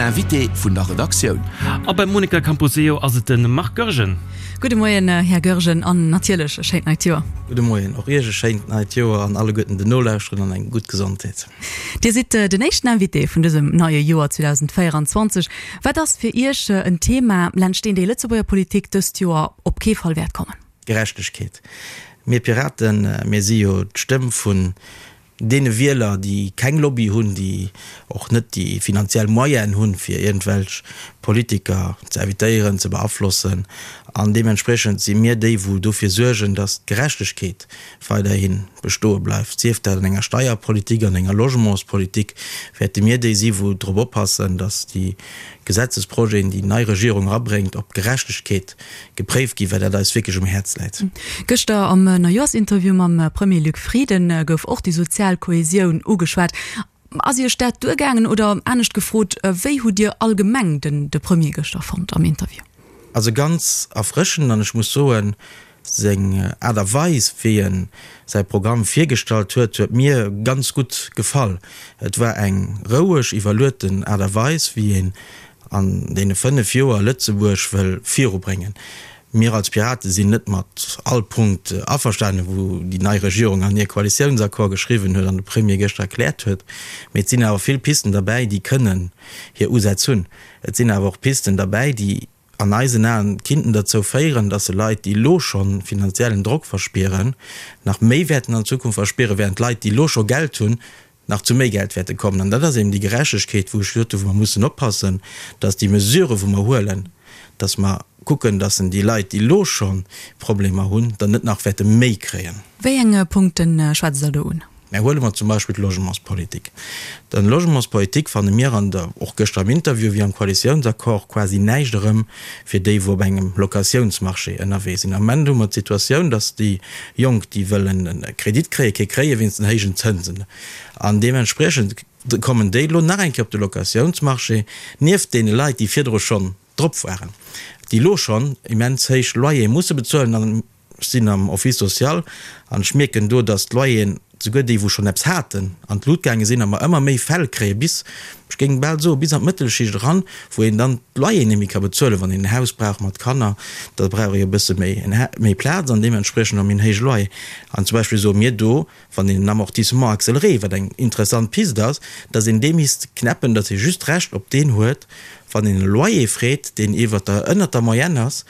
Den Invité vun der Redaktioun. A beim Monica Camposeo ass et de Marc Goergen. Gudde Moien, Här Goergen, an natierlech e schéint neit Joer. Gudde Moien, och Iech e schéint neit Joer an alleguerten den Nolauschteren an eng gutt Gesondheet. Dir sidd den éischten Invité vun dësem neie Joer 2024. Wat ass fir Iech en Thema, laanscht deen déi Lëtzebuerger Politik dëst Joer op kee Fall wäert kommen? Gerechtegkeet. Mir Piraten, mir si jo d'Stëmm vun deene Wieler, déi keng Lobby hunn, déi och net déi finanziell Moyenen hunn, fir iergendwelch Politiker ze invitéieren, ze beaflossen. An deementspriechend si mir déi, wou dofir suergen, datt d'Gerechtegkeet weiderhi bestoe bleift. Sief dat an enger Steierpolitik, an enger Logementspolitik, wäerte mir déi si wou drop oppassen, datt déi Gesetzesprojeten, déi nei Regierung erabréngt, op Gerechtegkeet gepréift ginn, well dat eis wierklech um Häerz läit. Gëschter am Neijoerschinterview mam Premier Luc Frieden gouf och déi sozial Kohesioun ugeschwat. Ass Iech dat duergaangen oder anescht gefrot, wéi hutt Dir allgemeng den de Premier gëschter fonnt am Interview? Also ganz erfrëschend an ech muss soen, seng Aart a Weis wéi en säi Programm virgestallt huet, huet mir ganz gutt gefall. Et war eng roueg, iwwerlueten Aart a Weis wéi een an deene 5 Joer Lëtzebuerg wëll virubréngen. Mir als Pirate sinn net mat all Punkt averstanen, wou déi nei Regierung an hir Koalitiounsaccord geschriwwen huet an de Premier gëschter erkläert huet, mee et sinn awer vill Pisten derbäi, déi kënnen hir Usätz hunn. Et sinn awer och Pisten derbäi, déi an eisen Aen kinnten derzou féieren, dass se Leit, déi elo scho finanziellen Drock verspieren, nach méi wäerten an Zukunft verspieren, während Leit, déi elo scho Geld hunn, nach zu méi Geld wäerte kommen. An dat ass eben déi Gerechtegkeet, wou ech gesot hunn, wou mer mussen oppassen, dass déi Mesurë wou mer huelen, dass mer kucken, dass en déi Leit, déi elo scho Problemer hunn, dann net nach wäerte méi kréien. Wéi eng Punkte schwätzt Der do un? Mä huele mer zum Beispill d'Logementspolitik. Dann Logementspolitik fanne mir an der, och gëschter am Interview wéi am Koalitiounsaccord, quasi näischt erëm fir déi, wou op engem Locatiounsmarché ënnerwee sinn. Am Moment hu mer d'Situatioun, dass déi Jonk, déi wëllen e Kredit kréien, kee kréie wéinst den héijen Zënsen. An deementspriechend kommen déi elo nach eng Kéier op de Locatiounsmarché, nieft deene Leit, déi virdru schonn drop waren, déi elo schonn immens héich Loyere musse bezuelen. An ech sinn am Office social an ech mierken do, dass d'Loyeren, souguer déi wou schonn eppes haten, an d'Lut gaange sinn a mer ëmmer méi Fäll kréien, bis, ech géing bal soen, bis an d'Mëttelschicht eran, wou een dann d'Loyeren net méi ka bezuelen. Wann een en Haus brauch mat Kanner, da brauch ee jo e bësse méi, méi Plaz an deementspriechend och méi en héije Loyer. An zum Beispill soe mir do, wann een en Amortissement accéléré, wat eng interessant Pist ass, dass een dee misst knäppen, dass ee just d'Recht op deen huet, wann een e Loyer freet, deen iwwer der, ënnert der Moyenne ass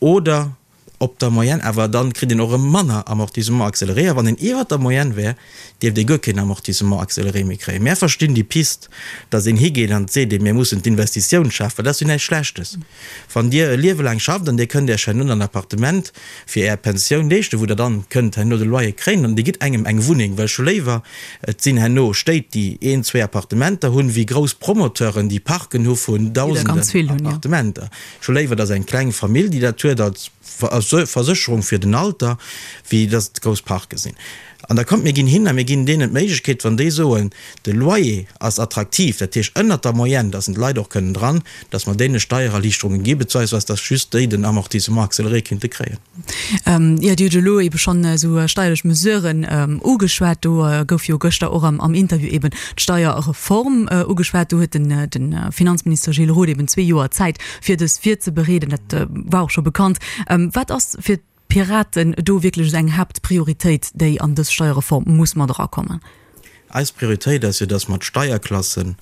oder op der Moyenne, awer dann kritt een och erëm manner Amortissement accéléré. A wann een iwwert der Moyenne wär, dierft ee guer keen Amortissement accéléré méi kréien. Mär verstinn déi Pist, datt een higeet an seet, mir mussen d'Investitioun schafen, well dat ass jo näischt Schlechtes. Wann Dir e Liewe laang schafft an Dir kënnt Iech herno en Appartement fir Är Pensioun leeschten, wou Der dann kënnt herno de Loyer kréien an Dir gitt engem eng Wunneng, well ech hu léiwer, et sinn herno Stéit, déi een, zwee Appartementer hunn, wéi grouss Promoteuren, déi Parken hu vun Dausenden Appartementer. Ech hu léiwer, dass eng kleng Famill, déi dat huet als Versécherung fir den Alter, wéi dass et grouss Parke sinn. An da kommt, mir ginn hin a mir ginn deenen d'Méiglechkeet, wann déi soen, de Loyer ass attraktiv, dat heescht ënnert der Moyenne, dass en d'Leit och kënnen dran, dass mer deene Steiererliichterunge gi beziehungsweise dass just déi den Amortissement accéléré kinnte kréien. Jo, Dir hutt elo eebe schonn esou steierlech Mesuren ugeschwat. Do gouf jo gëschter och am Interview eeben d'Steierreform ugeschwat. Do huet de Finanzminister Gilles Roth eeben zwee Joer Zäit, fir dës virzebereeden. Dat war och scho bekannt. Wat ass fir d'Piraten do wierklech esou eng Haaptprioritéit, déi an dës Steierreform muss mat erakommen? Eis Prioritéit ass jo, dass mer d'Steierklassen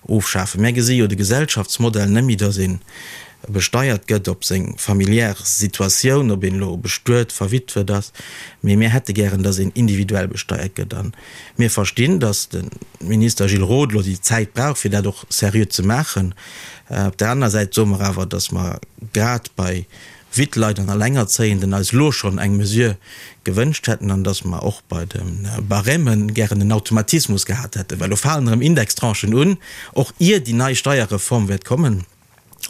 ofschafen. Mär gesi jo de Gesellschaftsmodell net méi, dass ee besteiert gëtt op seng familiär Situatioun, ob een elo bestuet, verwitwet ass, mee mir hätte gären, dass een individuell besteiert gëtt. A mir verstinn, dass de Minister Gilles Roth elo déi Zäit brauch, fir dat och seriö ze maachen. Op där anerer Säit soe mer awer, dass mer grad bei Wittleit an Allengerzéienden eis elo schonn eng Mesure gewënscht hätten an dass mer och bei de Barèmen gären en Automatismus gehat hätten, well elo falen erëm Indextranchen un, och ier déi nei Steierreform wäert kommen.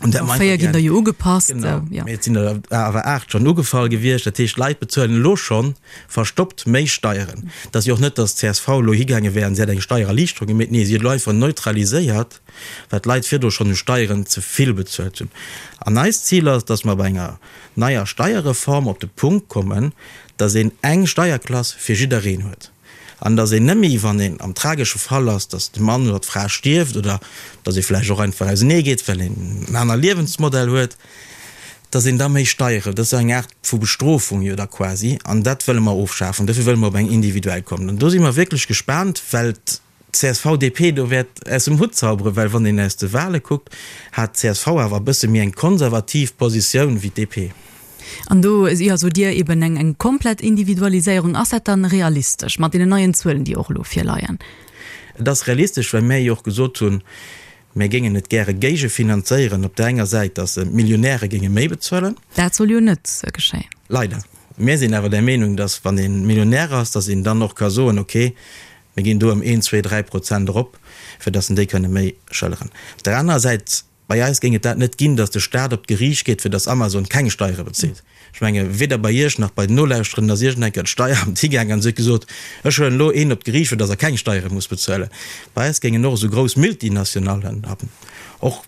An dat mer einfach gär. Der jo ugepasst. Genau, mee et sinn der awer 8 schonn ugefall gewiescht. Dat heescht, d'Leit bezuelen elo scho verstoppt méi Steieren. Et ass jo och net, dass d'CSV elo higaange wär an se hätt eng Steiererliichterung gemeet. Nee, si huet elo einfach neutraliséiert, wat d'Leit virdru schonn u Steieren ze vill bezuelt hunn. An eist Zil ass, dass mer bei enger neier Steierreform op de Punkt kommen, dass een eng Steierklass fir jiddereen huet. An datt een net méi, wann een am tragesche Fall ass, datt de Mann oder d'Fra stierft oder datt ee vläicht och einfach ausenee geet, well een en aner Liewensmodell huet, datt een da méi Steiere, dat ass eng Aart vu Bestrofung jo da quasi, an dat wëlle mer ofschafen. Dofir wëlle mer op eng individuell kommen. An do si mer wierklech gespaant, well d'CSV-DP do wäert aus dem Hutt zauberen, well wann een aus de Wahle kuckt, hat d'CSV awer e bësse méi eng konservativ Positioun wéi d'DP. An do, jo, sot Dir eben eng eng komplett Individualiséierung. Ass dat dann realistesch mat deenen neien Zuelen, déi och elo virleien? Et ass realistesch, well mär jo och gesot hunn, mär géingen et gäre géigefinanzéieren op där enger Säit, datt d'Millionäre géinge méi bezuelen. Dat soll jo net geschéien. Leider. Mär sinn awer der Meenung, datt wann ee Millionär ass, datt een dann och ka soen, okay, mir ginn do ëm een, zwee, 3 Prozent erop, fir datt en déi kënne méi schëlleren. Op där anerer Säit Bei eis géing et dat net ginn, datt de Staat op d'Geriicht geet, fir datt Amazon keng Steiere bezilt. Ech menge weder bei Iech nach bei den Nolauschterenden ass iergend eng Kéier d'Steieramt higaangen an se huet gesot, ech huelen elo een op d'Geriicht, fir datt er keng Steiere muss bezuelen. Bei eis géingen och esou grouss Multinationallen an och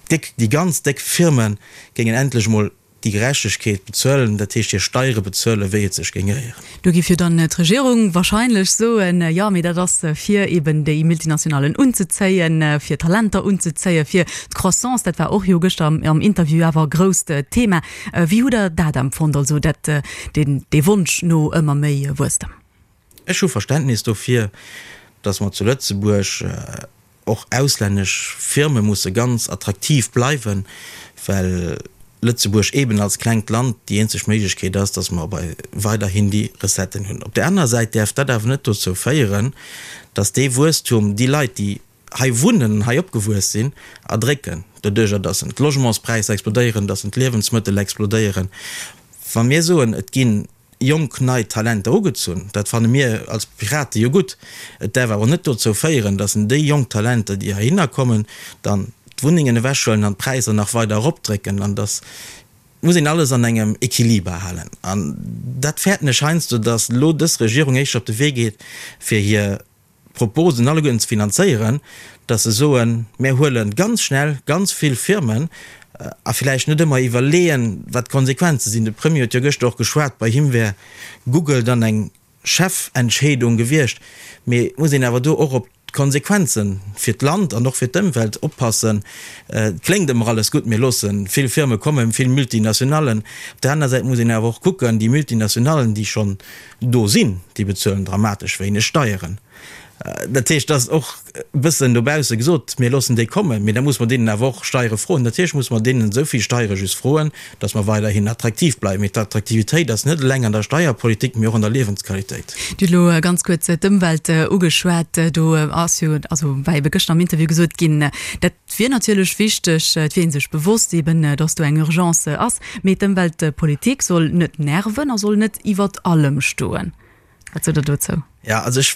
déck, déi ganz déck Firme géingen endlech emol déi Gerechtegkeet bezuelen, dat heescht hir Steiere bezuelen, wéi et sech géing gehéieren. Do géif jo dann d'Regierung wahrscheinlech soen, jo, mee dat ass fir eben déi Multinationalen unzezéien, fir Talenter unzezéien, fir d'Croissance, dat war och jo gëschter am Interview awer e grousst Thema. Wéi hutt Der dat empfonnt, also dat, deen, dee Wonsch no ëmmer méi Wuesstem? Ech hu Verständnis dofir, datt mer zu Lëtzebuerg och auslännesch Firme musse ganz attraktiv bleiwen, well Lëtzebuerg eeben als klengt Land déi eenzeg Méiglechkeet ass, datt mer bei weiderhin déi Recetten hunn. Op där anerer Säit däerf dat awer net dozou féieren, datt dee Wuesstum déi Leit, déi hei wunnen an hei opgewuess sinn, erdrécken, doduerjer datt d'Logementspräisser explodéieren, datt d'Liewensmëttel explodéieren. Wa mir soen, et ginn jonk nei Talenter ugezunn. Dat fanne mir als Pirate jo gutt. Et däerf awer net dozou féieren, datt en déi jonk Talenter, déi heihinner kommen, dann d'Wunnengen ewechhuelen an d'Präisser nach weider eropdrécken. An datt muss een alles an engem Equiliber halen. An dat fäerten ech heiansdo, datt elo dës Regierung éischter op de Wee geet, fir hir Proposen alleguerten ze finanzéieren, dass se soen, mär huele ganz schnell ganz vill Firmen a villäicht net ëmmer iwwerleeën, wat d'Konsequenze sinn. De Premier huet jo gëschter och geschwat, bei him wär Google dann eng Chefentscheedung gewiescht. Mee et muss een awer do och op d'Konsequenze fir d'Land an och fir d'Ëmwelt oppassen. Et kléngt ëmmer alles gutt, mir loosse vill Firme kommen, vill Multinationallen. Op där aner Säit muss een awer och kucken, déi Multinationallen, déi schonn do sinn, déi bezuelen dramatesch wéineg Steieren. Dat heescht, et ass och e bëssen dobausse gesot, mir loossen déi kommen, mee da muss mer deenen awer och Steiere froen. Natierlech muss mer deenen esou vill Steiere just froen, datt mer weiderhin attraktiv bleiwen. Mee d'Attraktivitéit ass net eleng an der Steierpolitik, mee och an der Liewensqualitéit. Dir hutt elo ganz kuerz d'Ëmwelt ugeschwat. Do ass jo, also war ebe gëschter am Interview gesot ginn, dat wier natierlech wichteg, et wier ee sech bewosst eben, datt do eng Urgence ass. Mee d'Ëmweltpolitik soll net nerven a soll net iwwert allem stoen. Wat sot Der dozou? Jo, also ech,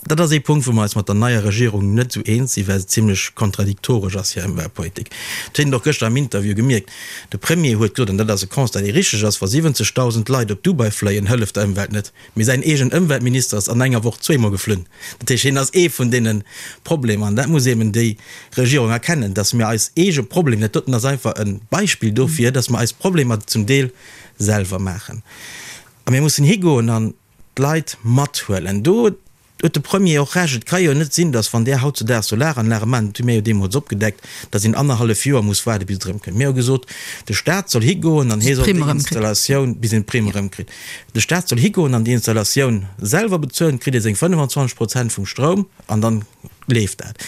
dat ass ee Punkt, wou mer eis mat der neier Regierung net esou eens sinn, well se zimlech kontradiktoresch ass, hir Ëmweltpolitik. Dat huet een och gëschter am Interview gemierkt. De Premier huet gesot, an dat ass e Constat, dee richteg ass, Wa 70.000 Leit op Dubai fléien, hëlleft der Ëmwelt net. Mee säin eegen Ëmweltminister ass an enger Woch zweemol geflunn. Dat heescht, hien ass ee vun deene Problemer. An dat muss eben déi Regierung erkennen, dass mir eis eege Problemer, dat doten ass einfach e Beispill dofir, dass mer eis Problemer zum Deel selwer maachen. A mir mussen higoen an d'Leit mathuelen. Do huet de Premier och Recht. Et ka jo net sinn, dass, wann där hautzudaags Solaranlage maachen, dat hu mir jo deemools opgedeckt, dass een annerhallef Joer muss waarde bis et erëmkënnt. Mir hu gesot, de Stat soll higoen an hie soll déi Installatioun, bis een d'Primm erëmkritt, de Stat soll higoen an déi Installatioun selwer bezuelen, kritt ee seng 25 Prozent vum Stroum an dann leeft dat.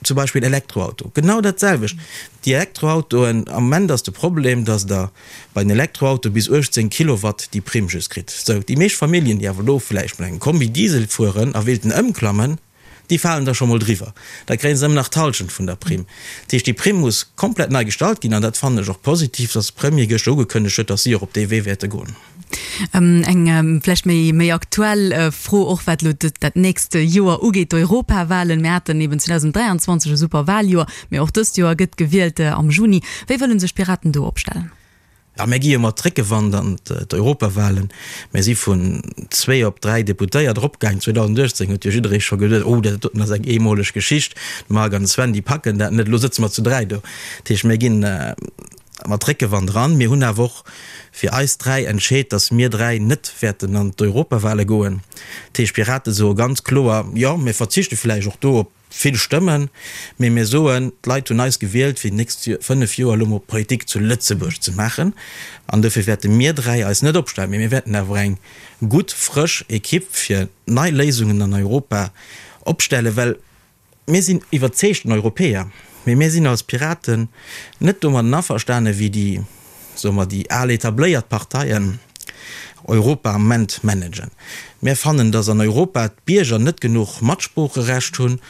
Zum Beispill Elektroauto, genau dat selwecht. Déi Elektroautoen, am Moment ass de Problem, dass Der bei den Elektroautoe bis 18 Kilowatt déi Primm just kritt. Sou, déi meescht Familljen, déi awer elo vläicht mat engem Kombi Diesel fueren a wéilten ëmklammen, déi falen da scho mol driwwer. Da kréie se ëmmer nach d'Hallschent vun der Primm. Dat heescht, déi Primm muss komplett nei gestallt ginn an dat fannen ech och positiv, dass de Premier gëschter ugekënnegt huet, dass si och op dee Wee wäerte goen. Eng vläicht méi méi aktuell Fro och, wat elo dat nächst Joer ugeet, d'Europawahlen. Mir haten eben 2023 e super Wahljoer, mee och dëst Joer gëtt gewielt am Juni. Wéi wëlle sech d'Piraten do opstellen? Jo, mir gi jo mat Réckewand an d'Europawahlen. Mir si vun zwee op dräi Deputéiert eropgaangen. 2018 huet jo jidderee scho geduet, oh, dat doten ass eng eemoleg Geschicht, de Marc an de Sven, déi packen dat net. Elo sëtze mer zu dräi do. Dat heescht, mir ginn. mat Réckewand eran. Mir hunn awer och fir eis 3 entscheet, datt mir 3 net wäerten an d'Europawale goen. Dat heescht, d'Pirate soe ganz kloer, jo, mir verzichte vläicht och do op vill Stëmmen, mee mir soen, d'Leit hunn eis gewielt, fir déi nächst 5 Joer elo mol Politik zu Lëtzebuerg ze maachen. An dofir wäerte mir 3 eis net opstellen, mee mir wäerten awer eng gutt, frësch Ekipp fir nei Léisungen an Europa opstellen, well Mir sinn iwwerzeegten Europäer, mee mir sinn als Piraten net domadden averstane wéi déi, soe mer, déi al etabléiert Parteien Europa am Moment managen. Mir fannen, datt an Europa d'Bierger net genuch Matsproocherecht hunn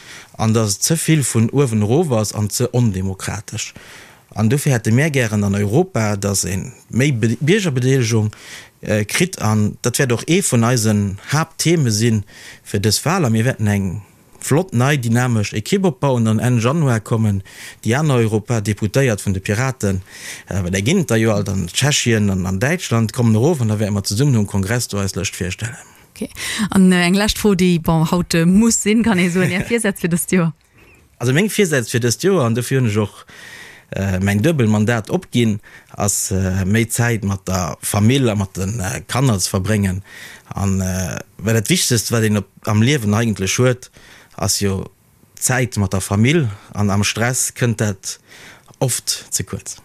an datt et ze vill vun uewen erof ass an ze ondemokratesch. An dofir hätte mär gären an Europa, datt ee méi Biergerbedeelegung kritt an dat wäert och ee vun eisen Haapttheme si fir dës Wal a mir wäerten eng Flott nei dynamesch Ekipp opbauen an Enn Januar kommen déi aner Europadeputéiert vun de Piraten, well där ginn et der jo alt an Tschechien an an Däitschland, kommen erof an da wäerte mer zesummen um Kongress do eis Lëscht virstellen. Ok. An eng lescht Fro, déi, bon, haut muss sinn, kann ee soen, Är Virsätz fir dëst Joer? Also meng Virsätz fir dëst Joer, an dofir hunn ech och mäin Duebelmandat opginn, ass méi Zäit mat der Famill a mat de Kanner ze verbréngen. An well dat Wichtegst wat een op am Liewen eigentlech huet, ass jo d'Zäit mat der Famill an am Stress kënnt dat oft ze kuerz.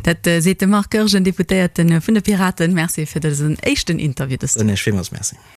Dat seet de Marc Goergen, Deputéierte vun de Piraten. Merci fir dësen éischten Interview dëst Joer. Soen Iech villmools Merci.